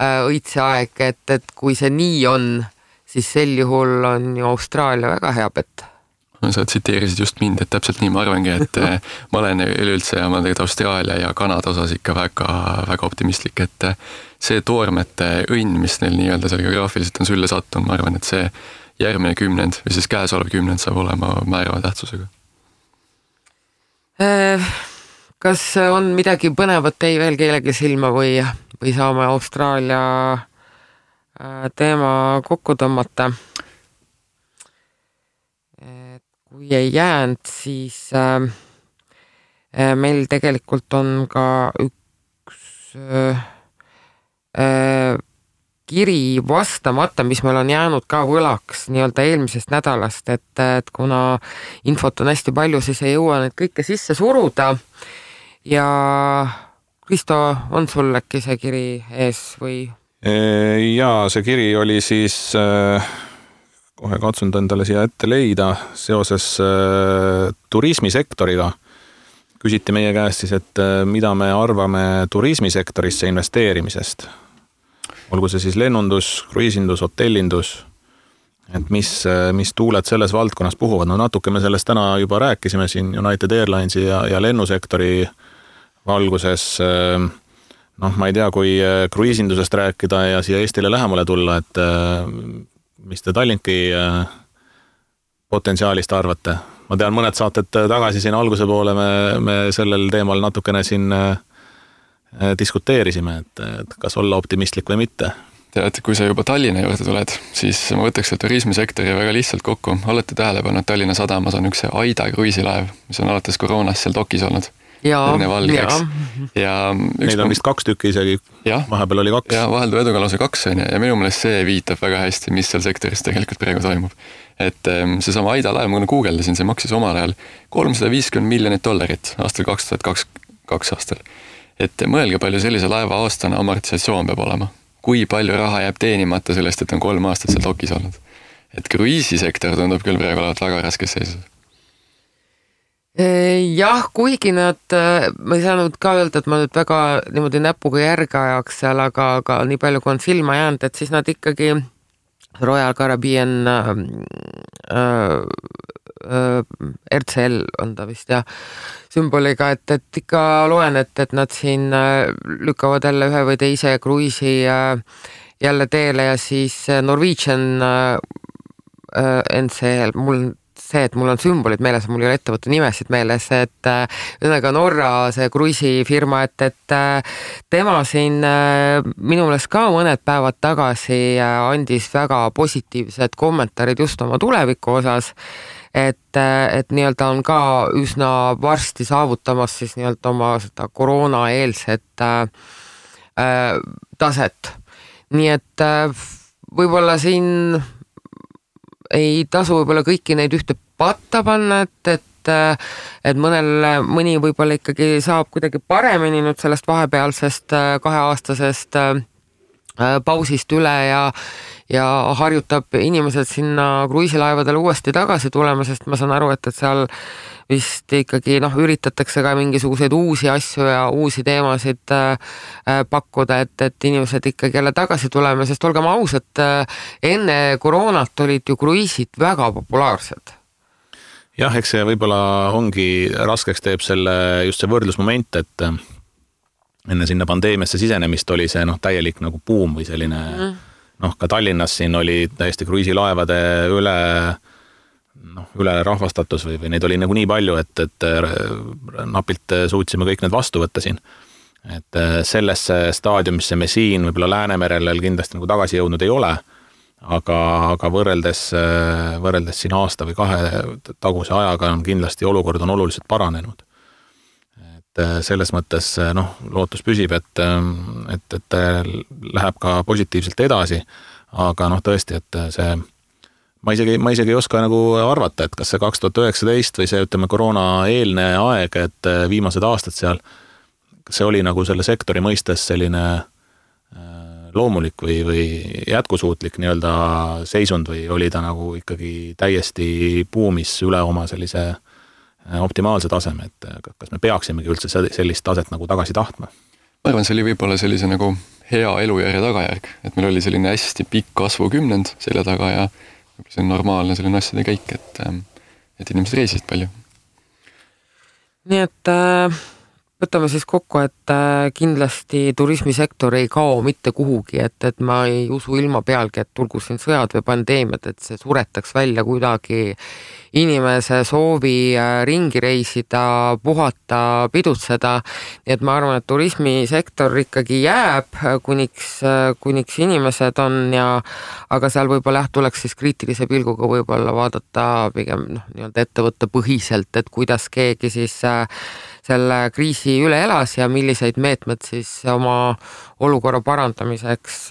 õitseaeg, et kui see nii on, siis sel juhul on ju Austraalia väga hea pett. Sa tsiteerisid just mind, et täpselt nii ma arvangi, et ma olen üleüldse ja ma tegelikult Austraalia ja Kanada osas ikka väga optimistlik, et see toormete õnn, mis neil nii-öelda seal geograafiliselt on sülle sattunud, ma arvan, et see järgmine kümnend või siis käesolev kümnend saab olema määrava tähtsusega. Kas on midagi põnevat teie veel kellegi silma või saame Austraalia teema kokku tõmmata? Kui ei jäänud, siis meil tegelikult on ka üks kiri vastamata, mis meil on jäänud ka võlaks nii-öelda eelmisest nädalast, et kuna infot on hästi palju, siis ei jõua neid kõike sisse suruda. Ja Kristo, on sul äkki see kiri ees või? Jaa, see kiri oli siis... kohe katsun endale siia ette leida seoses turismisektoriga. Küsiti meie käest siis, et mida me arvame turismisektorisse investeerimisest. Olgu see siis lennundus, kruiisindus, hotellindus, et mis tuuled selles valdkonnas puhuvad. No natuke me sellest täna juba rääkisime siin United Airlinesi ja lennusektori valguses. Noh, ma ei tea, kui kruiisindusest rääkida ja siia Eestile lähemale tulla, et mis te Tallinki potentsiaalist arvate? Ma tean, mõned saated tagasi siin alguse poole me sellel teemal natukene siin diskuteerisime, et kas olla optimistlik või mitte. Tead, kui sa juba Tallinna juurde tuled, siis ma võtaks selle turismisektori väga lihtsalt kokku. Olete tähelepanu, et Tallinna sadamas on üks Aida kruiisilaev, mis on alates koroonast seal dokis olnud. Ja neid on vist 2 tükki isegi, vahepeal oli 2. Ja vaheldu eduga lausa 2 ja minu meelest see viitab väga hästi, mis seal sektoris tegelikult praegu toimub. Et see sama Aida laev, ma guugeldasin, see maksis omal ajal $350 miljonit aastal 2022 aastal. Et mõelge palju sellise laeva aastane amortisatsioon peab olema. Kui palju raha jääb teenimata sellest, et on 3 aastat seal dokis olnud. Et kruiisisektor tundub küll praegu olevat väga raskes seisus. Jah, kuigi nad, ma ei saanud ka öelda, et ma nüüd väga niimoodi näpuga järge ajaks seal, aga nii palju kui on silma jäänud, et siis nad ikkagi Royal Caribbean RCL on ta vist sümboliga, et ikka loen, et nad siin lükkavad jälle ühe või teise kruiisi jälle teele ja siis Norwegian NCL, et mul on sümbolid meeles, mul ei ole ettevõtte nimesid meeles, et ühesõnaga Norra see kruiisifirma, et tema siin minu meelest ka mõned päevad tagasi andis väga positiivsed kommentaarid just oma tuleviku osas, et nii-öelda on ka üsna varsti saavutamas siis nii-öelda oma seda koroonaeelset taset. Nii et võib-olla siin ei tasu võib-olla kõiki neid ühte patta panna, et mõni võib-olla ikkagi saab kuidagi paremini nüüd sellest vahepealsest 2-aastasest pausist üle ja harjutab inimesed sinna kruiisilaevadele uuesti tagasi tulema, sest ma saan aru, et seal vist ikkagi üritatakse ka mingisuguseid uusi asju ja uusi teemasid pakkuda, et inimesed ikkagi jälle tagasi tulema, sest olgem ausad, enne koroonat olid ju kruiisid väga populaarsed. Jah, eks see võib-olla ongi raskeks teeb just see võrdlusmoment, et enne sinna pandeemiasse sisenemist oli see täielik nagu buum või selline ka Tallinnas siin oli täiesti kruiisilaevade üle rahvastatus või neid oli nagu nii palju, et napilt suutsime kõik need vastu võtta siin. Et sellesse staadiumisse me siin võib-olla Läänemerel kindlasti nagu tagasi jõudnud ei ole, aga võrreldes siin aasta või 2 taguse ajaga on kindlasti olukord on oluliselt paranenud. Et selles mõttes lootus püsib, et läheb ka positiivselt edasi, aga tõesti, et see ma isegi ei oska nagu arvata, et kas see 2019 või see, ütleme, koroona eelne aeg, et viimased aastad seal, kas see oli nagu selle sektori mõistes selline loomulik või jätkusuutlik nii-öelda seisund või oli ta nagu ikkagi täiesti buumis üle oma sellise optimaalse taseme, et kas me peaksimegi üldse sellist taset nagu tagasi tahtma? Ma arvan, see oli võib-olla sellise nagu hea elujärje tagajärg, et meil oli selline hästi pikk kasvukümnend selle taga ja see on normaalne selline asjade käik, et inimesed reisisid palju. Nii et võtame siis kokku, et kindlasti turismisektor ei kao mitte kuhugi, et ma ei usu ilma pealgi, et tulgu siin sõjad või pandeemiad, et see suretaks välja kuidagi inimese soovi ringi reisida, puhata, pidutseda. Nii et ma arvan, et turismisektor ikkagi jääb, kuniks inimesed on aga seal võib-olla tuleks siis kriitilise pilguga võib-olla vaadata pigem nii-öelda ettevõtte põhiselt, et kuidas keegi siis selle kriisi üle elas ja milliseid meetmed siis oma olukorra parandamiseks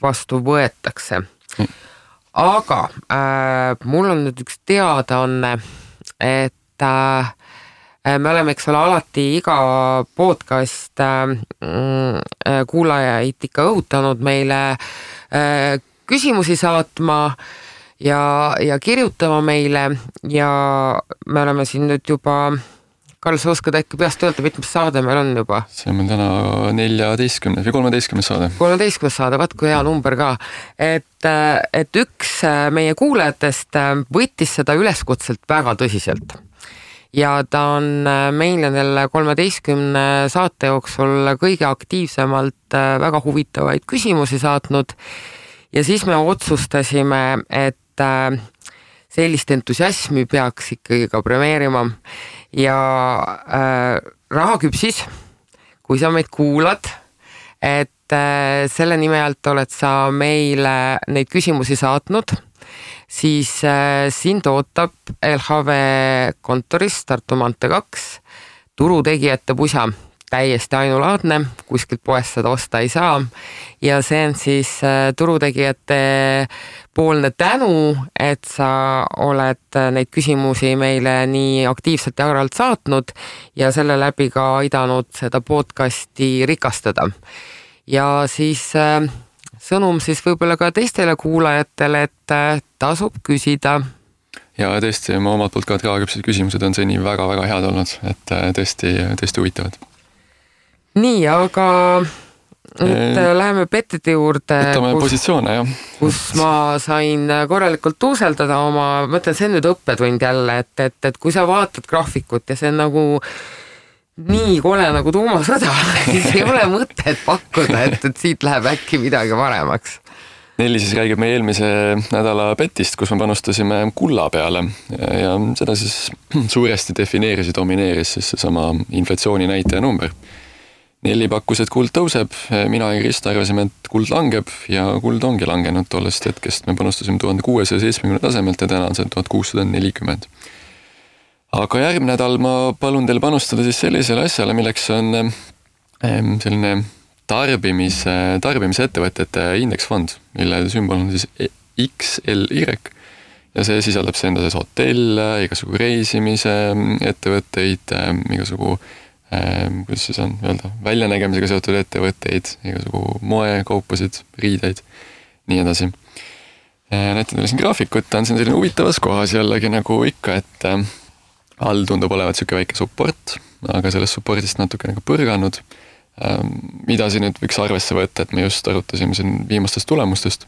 vastu võetakse. Aga mul on nüüd üks teadaanne, et me oleme, eks ole, alati iga podcast kuulajaid ikka õhutanud meile küsimusi saatma ja kirjutama meile ja me oleme siin nüüd juba Karl, sa oskad äkki peast öelda, mitmes saade meil on juba? See on meil täna 14 või 13 saade. 13 saade, vaat kui hea number ka. Et üks meie kuulajatest võttis seda üleskutselt väga tõsiselt. Ja ta on meile neile 13 saate jooksul kõige aktiivsemalt väga huvitavaid küsimusi saatnud. Ja siis me otsustasime, et sellist entusiasmi peaks ikkagi ka premeerima. Ja Rahaküpsis, kui sa meid kuulad, et selle nime alt oled sa meile neid küsimusi saatnud, siis sind ootab LHV kontoris Tartu maantee 2 turutegijate pusa. Täiesti ainulaadne, kuskilt poest seda osta ei saa ja see on siis turutegijate poolne tänu, et sa oled neid küsimusi meile nii aktiivselt ja agaralt saatnud ja selle läbi ka aidanud seda podcasti rikastada. Ja siis sõnum siis võib-olla ka teistele kuulajatele, et tasub küsida. Ja tõesti, ma omalt poolt ka Rahaküpside küsimused on seni väga-väga head olnud, et tõesti huvitavad. Nii, aga nüüd läheme petide juurde, positsioone, jah. Kus ma sain korralikult tuuseldada oma, mõtlen, see on nüüd õppetund jälle, et kui sa vaatad graafikut ja see on nagu nii kole nagu tuumasõda, siis ei ole mõtet pakkuda, et siit läheb äkki midagi paremaks. Nelli siis räägib meie eelmise nädala petist, kus me panustasime kulla peale ja seda siis suuresti defineeris ja domineeris siis seesama inflatsiooni näitaja number. Nelli pakkus, et kuld tõuseb, mina ja Krista arvasime, et kuld langeb ja kuld ongi langenud tollest hetkest. Me panustasime 1670 tasemelt ja täna on see 1640. Aga järgmine nädal ma palun teil panustada siis sellisele asjale, milleks on selline tarbimise ettevõtete indeksfond, mille sümbol on siis XLY ja see sisaldab see enda sees hotell, igasugu reisimise ettevõtteid, igasugu kuidas siis on öelda, väljanägemisega seotud ettevõtteid, igasugu moekaupasid, riideid, nii edasi. Näitan teile siin graafikut, on siin selline huvitavas kohas jällegi nagu ikka, et all tundub olevat siuke väike support, aga sellest supportist natuke nagu põrganud. Mida siin nüüd võiks arvesse võtta, et me just arutasime siin viimastest tulemustest,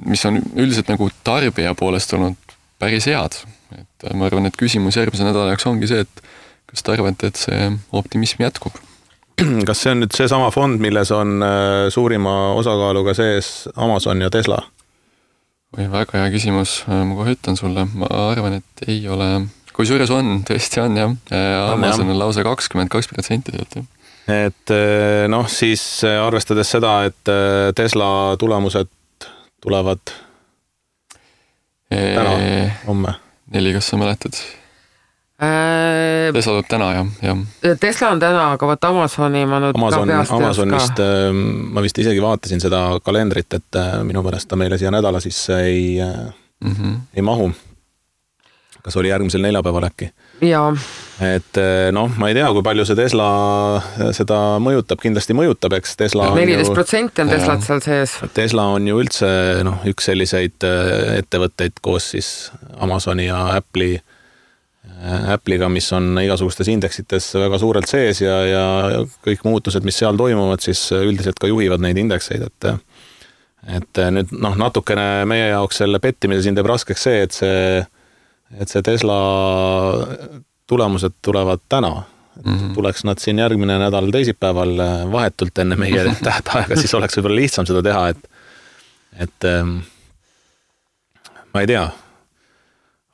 mis on üldiselt nagu tarbija poolest olnud päris head. Et ma arvan, et küsimus järgmise nädala jaoks ongi see, et kas te arvate, et see optimism jätkub? Kas see on nüüd see sama fond, milles on suurima osakaaluga sees Amazon ja Tesla? Või väga hea küsimus, ma kohe ütlen sulle. Ma arvan, et ei ole. Kui suures on, tõesti on jah. Amazon on lausa 22% sealt. Et siis arvestades seda, et Tesla tulemused tulevad täna, homme. Nelli, kas sa mäletad? Tesla tuleb täna, jah. Tesla on täna, aga võt Amazoni ma nüüd Amazonist ma vist isegi vaatasin seda kalendrit, et minu pärast ta meile siia nädala sisse ei mahu. Kas oli järgmisel neljapäeval äkki? Jaa. Et ma ei tea, kui palju see Tesla seda mõjutab, kindlasti mõjutab, eks Tesla 14% on Teslat seal sees. Tesla on ju üldse üks selliseid ettevõtteid koos siis Amazoni ja Apple'iga, mis on igasugustes indeksites väga suurelt sees ja kõik muutused, mis seal toimuvad, siis üldiselt ka juhivad neid indekseid, et nüüd natukene meie jaoks selle pettimise siin teeb raskeks see, et see Tesla tulemused tulevad täna. Tuleks nad siin järgmine nädal teisipäeval vahetult enne meie tähtaega, siis oleks võib-olla lihtsam seda teha, et ma ei tea.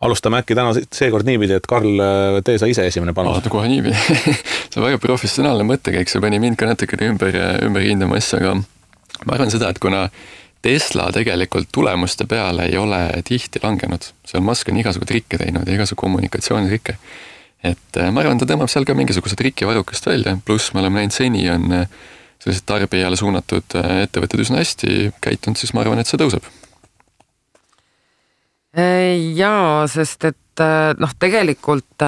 Alustame äkki täna seekord niipidi, et Karl, tee sa ise esimene panus. Kohe niipidi. See on väga professionaalne mõttekäik, see pani mind ka natukene ümber hindama asja, aga ma arvan seda, et kuna Tesla tegelikult tulemuste peale ei ole tihti langenud. Seal Musk on igasugu trikke teinud ja igasugu kommunikatsioonitrikke. Et ma arvan, ta tõmbab seal ka mingisuguse trikkivarukast välja, pluss me oleme näinud seni on sellised tarbijale suunatud ettevõtted üsna hästi käitunud, siis ma arvan, et see tõuseb. Jaa, sest et tegelikult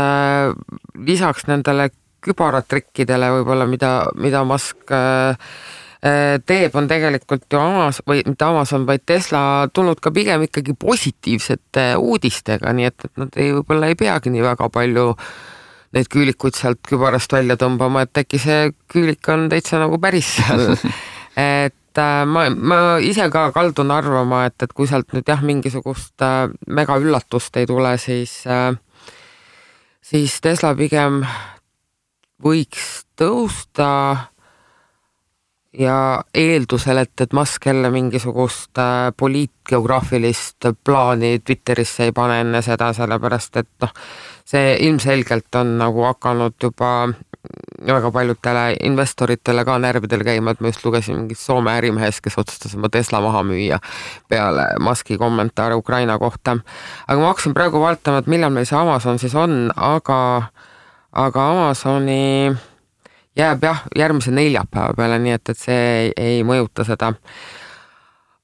lisaks nendele kübaratrikkidele võib-olla, mida Musk teeb, on tegelikult ju Amazon, vaid Tesla tulnud ka pigem ikkagi positiivsete uudistega, nii et nad võib-olla ei peagi nii väga palju neid küülikuid sealt kübarast välja tõmbama, et äkki see küülik on täitsa nagu päris seal. Et ma ise ka kaldun arvama, et kui sealt nüüd mingisugust mega üllatust ei tule, siis Tesla pigem võiks tõusta ja eeldusel, et Musk jälle mingisugust poliitgeograafilist plaani Twitterisse ei pane enne seda, sellepärast et see ilmselgelt on nagu hakanud juba väga paljudele investoritele ka närvidel käima, et ma just lugesin mingit Soome ärimehes, kes otsustas oma Tesla maha müüa peale Muski kommentaare Ukraina kohta. Aga ma hakkasin praegu vaatama, et millal meil see Amazon siis on, aga Amazoni jääb järgmise neljapäeva peale, nii et see ei mõjuta seda.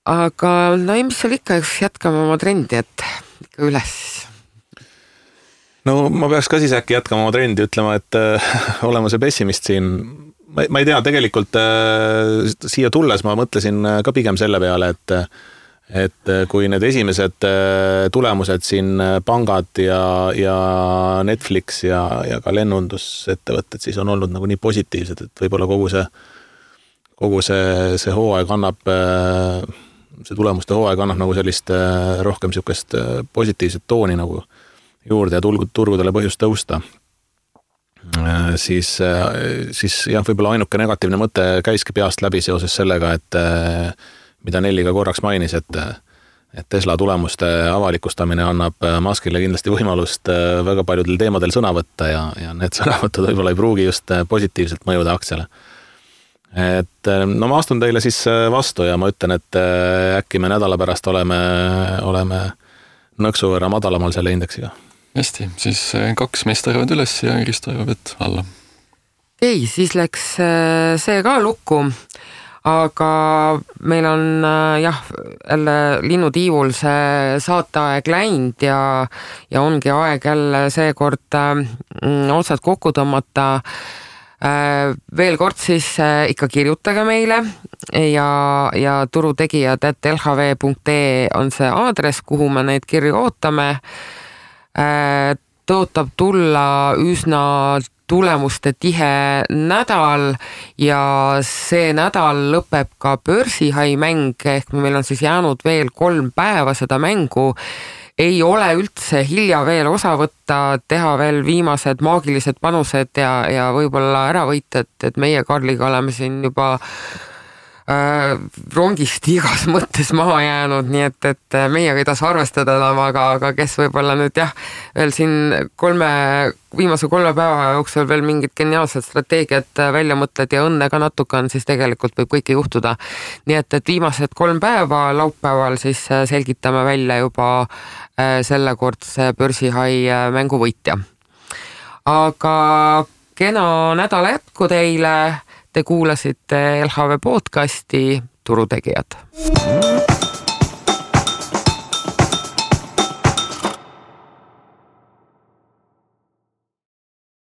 Aga mis seal ikka, jätkame oma trendi, et ikka üles. No ma peaks ka siis äkki jätkama oma trendi, ütlema, et olema see pessimist siin. Ma ei tea, tegelikult siia tulles ma mõtlesin ka pigem selle peale, et kui need esimesed tulemused siin pangad ja Netflix ja ka lennundusettevõtted siis on olnud nagu nii positiivsed, et võib-olla kogu see hooaeg annab, see tulemuste hooaeg annab nagu sellist rohkem siukest positiivset tooni nagu juurde ja turgudele põhjust tõusta. Siis võib-olla ainuke negatiivne mõte käiski peast läbi seoses sellega, et mida Nelli ka korraks mainis, et Tesla tulemuste avalikustamine annab Muskile kindlasti võimalust väga paljudel teemadel sõna võtta ja need sõnavõtud võib-olla ei pruugi just positiivselt mõjuda aktsiale. Et ma astun teile siis vastu ja ma ütlen, et äkki me nädala pärast oleme nõksu võrra madalamal selle indeksiga. Hästi, siis 2 meest arvavad üles ja Kristo arvab, et alla. Ei, siis läks see ka lukku. Aga meil on jälle linnutiivul see saateaeg läinud ja ongi aeg jälle seekord otsad kokku tõmmata. Veel kord siis ikka kirjutage meile ja turutegijad @lhv.ee on see aadress, kuhu me neid kirju ootame. Tõotab tulla üsna tulemuste tihe nädal ja see nädal lõpeb ka börsihai mäng, ehk meil on siis jäänud veel 3 päeva seda mängu. Ei ole üldse hilja veel osa võtta, teha veel viimased maagilised panused ja võib-olla ära võita, et meie Karliga oleme siin juba rongist igas mõttes maha jäänud, nii et meiega ei tasu arvestada enam, aga kes võib-olla nüüd veel siin viimase 3 päeva jooksul veel mingid geniaalsed strateegiad välja mõtled ja õnne ka natuke on, siis tegelikult võib kõike juhtuda. Nii et viimased 3 päeva laupäeval siis selgitame välja juba sellekordse börsihai mängu võitja. aga kena nädala jätku teile. Te kuulasite LHV podcasti Turutegijad.